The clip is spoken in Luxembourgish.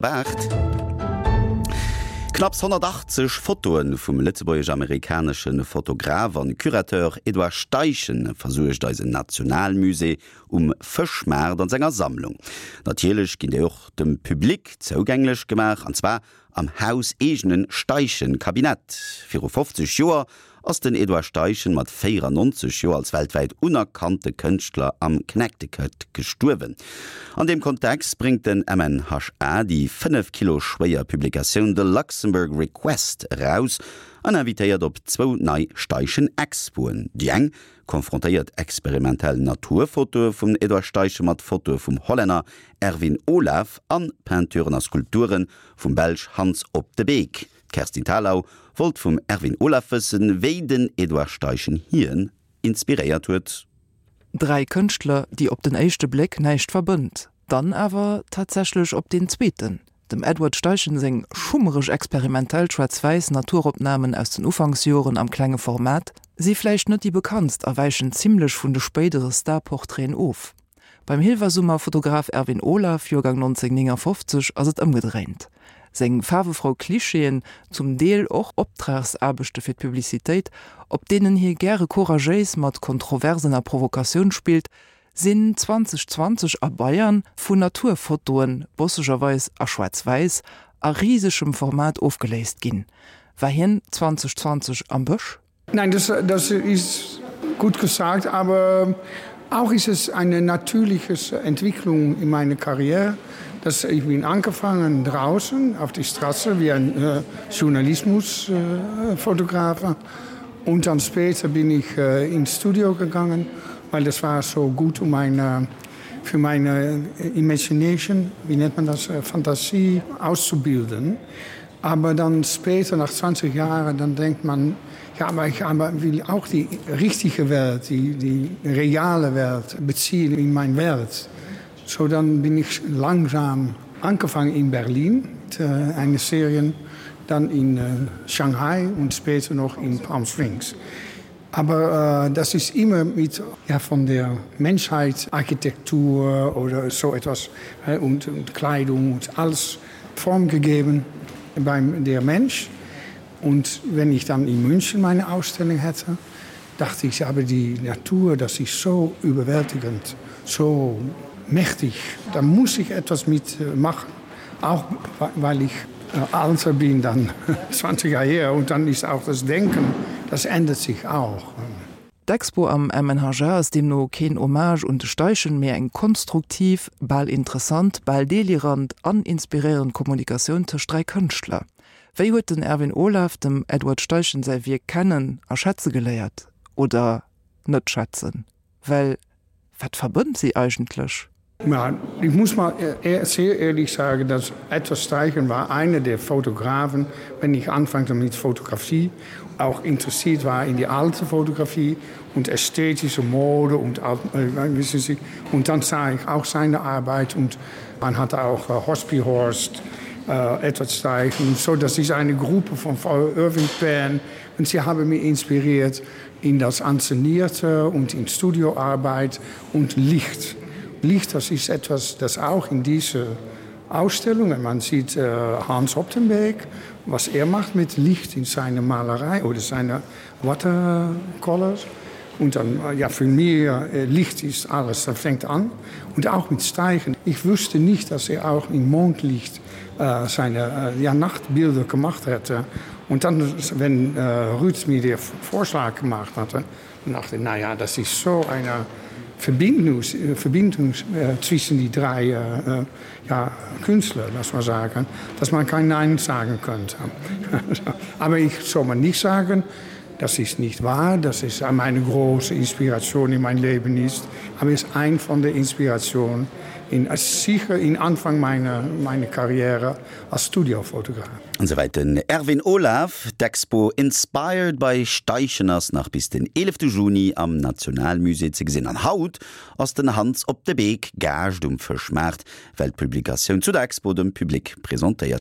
8. Knapps 180 Fotoe vum lëtzebuergesch-amerikanesche Fotograf an Curateur Edouard Steichen versuergt eisen Nationalmusée um Fëschmaart an senger Sammlung. Natierlech ginn déi och dem Public zougänglech gemaach, an zwar am hauseegene Steichen-Kabinett. Viru 50 Joer ass den Edouard Steichen mat 94 Joer als weltwäit unerkannte Kënschtler am Connecticut gestuerwen. An deem Kontext bréngt den MNHA déi 5 Kilo schwéier Publikatioun The Luxembourg Request eraus an invitéiert op zwou nei Steichen-Expoen. Déi eng konfrontéiert experimentell Naturfotoe vum Edouard Steichen mat Fotoe vum Hollänner Erwin Olaf an Peinturen a Skulpture vum Belsch Hans Op de Beeck. D'Kerstin Thalau wollt vum Erwin Olaf wëssen, wéi den Edouard Steichen hien inspiréiert huet. Dräi Kënschtler, déi op den éischte Bléck näischt verbënnt, dann awer tatsächlech op deen zweeten. Dem Edward Steichen seng schummereg experimentell schwaarz-wäiss Naturopnamen aus den Ufanksjoren am klenge Format si vläicht net déi bekanntst a wäichen zimmlech vun de spéidere Star-Portraiten of. Beim Hilversummer Fotograf Erwin Olaf, Joergang 1959, ass et ëmgedréint. Seng faarwefrou Klischeeën, zum Deel och Optragsaarbechte fir d'Publicitéit, op deenen hie gäre couragéis mat Kontroversen a Provokatioun spillt, sinn 2020 a Bayern vun Naturfotoen, bossegerweis a Schwaarz-Wäiss, a risegem Format ofgeléist ginn. War hien 2020 am Bësch? Nein, das, das ist gut gesagt, aber auch ist es eine natürliche Entwicklung in meiner Karriere, dass ich bin angefangen draußen auf die Straße wie ein äh, Journalismusfotografe äh, und dann später bin ich äh, ins Studio gegangen, weil das war so gut um meine für meine Imagination, wie nennt man das, äh, Fantasie auszubilden. Aber dann später nach 20 Jahren, dann denkt man, ja, aber ich aber will auch die richtige Welt, die, die reale Welt beziehen in mein Welt. So dann bin ich langsam angefangen in Berlin mit äh, einer Serie, dann in äh, Shanghai und später noch in Palm Springs. Aber äh, das ist immer mit ja, von der Menschheit Architektur oder so etwas äh, und, und Kleidung und alles Form gegeben beim der Mensch. Und wenn ich dann in München meine Ausstellung hätte, dachte ich aber die Natur, das ist so überwältigend, so mächtig, da muss ich etwas mitmachen. Auch weil ich äh, älter bin dann 20 Jahre her und dann ist auch das Denken, das ändert sich auch. D'Expo am MNHA ass deemno keen Hommage un de Steichen, mee eng konstruktiv, bal interessant, bal delirant an inspiréierend Kommunikatioun tëscht 3 Kënschtler. Wéi huet den Erwin Olaf dem Edward Steichen säi Wierk kennen a schätze geléiert? Oder net schätzen? Well wat verbënnt si eigentlech? Ja, ich muss mal äh, sehr ehrlich sagen, dass Edward Steichen war einer der Fotografen, wenn ich anfangte mit Fotografie, auch interessiert war in die alte Fotografie und ästhetische Mode und äh, wissen Sie, und dann sah ich auch seine Arbeit und man hatte auch äh, Hospihorst, äh, Edward Steichen, so das ist eine Gruppe von Irving Penn und sie haben mich inspiriert in das Anszenierte und in Studioarbeit und Licht. Licht, das ist etwas, das auch in diese Ausstellungen, man sieht äh, Hans Optenbeek, was er macht mit Licht in seiner Malerei oder seine Watercolors. Und dann, äh, ja, für mir äh, Licht ist alles, das fängt an. Und auch mit Steigen. Ich wusste nicht, dass er auch in Mondlicht äh, seine äh, ja, Nachtbilder gemacht hätte. Und dann, wenn äh, Ruth mir den Vorschlag gemacht hatte, dann dachte ich, naja, das ist so eine Verbindung, äh, Verbindung äh, zwischen die drei äh, äh, ja, Künstler, lass mal sagen, dass man kein Nein sagen könnte. Aber ich soll man nicht sagen, das ist nicht wahr, das ist meine große Inspiration in mein Leben ist, aber ist ein von der Inspirationen in, sicher in Anfang meiner, meiner Karriere als Studiofotograf. An souwäit den Erwin Olaf. D'Expo Inspired by Steichen ass nach bis den 11 Juni am Nationalmusée ze gesinn. An haut ass den Hans op de Beek Gaascht um Fëschmaart, well d'Publikatioun zu der Expo dem Public presentéiert.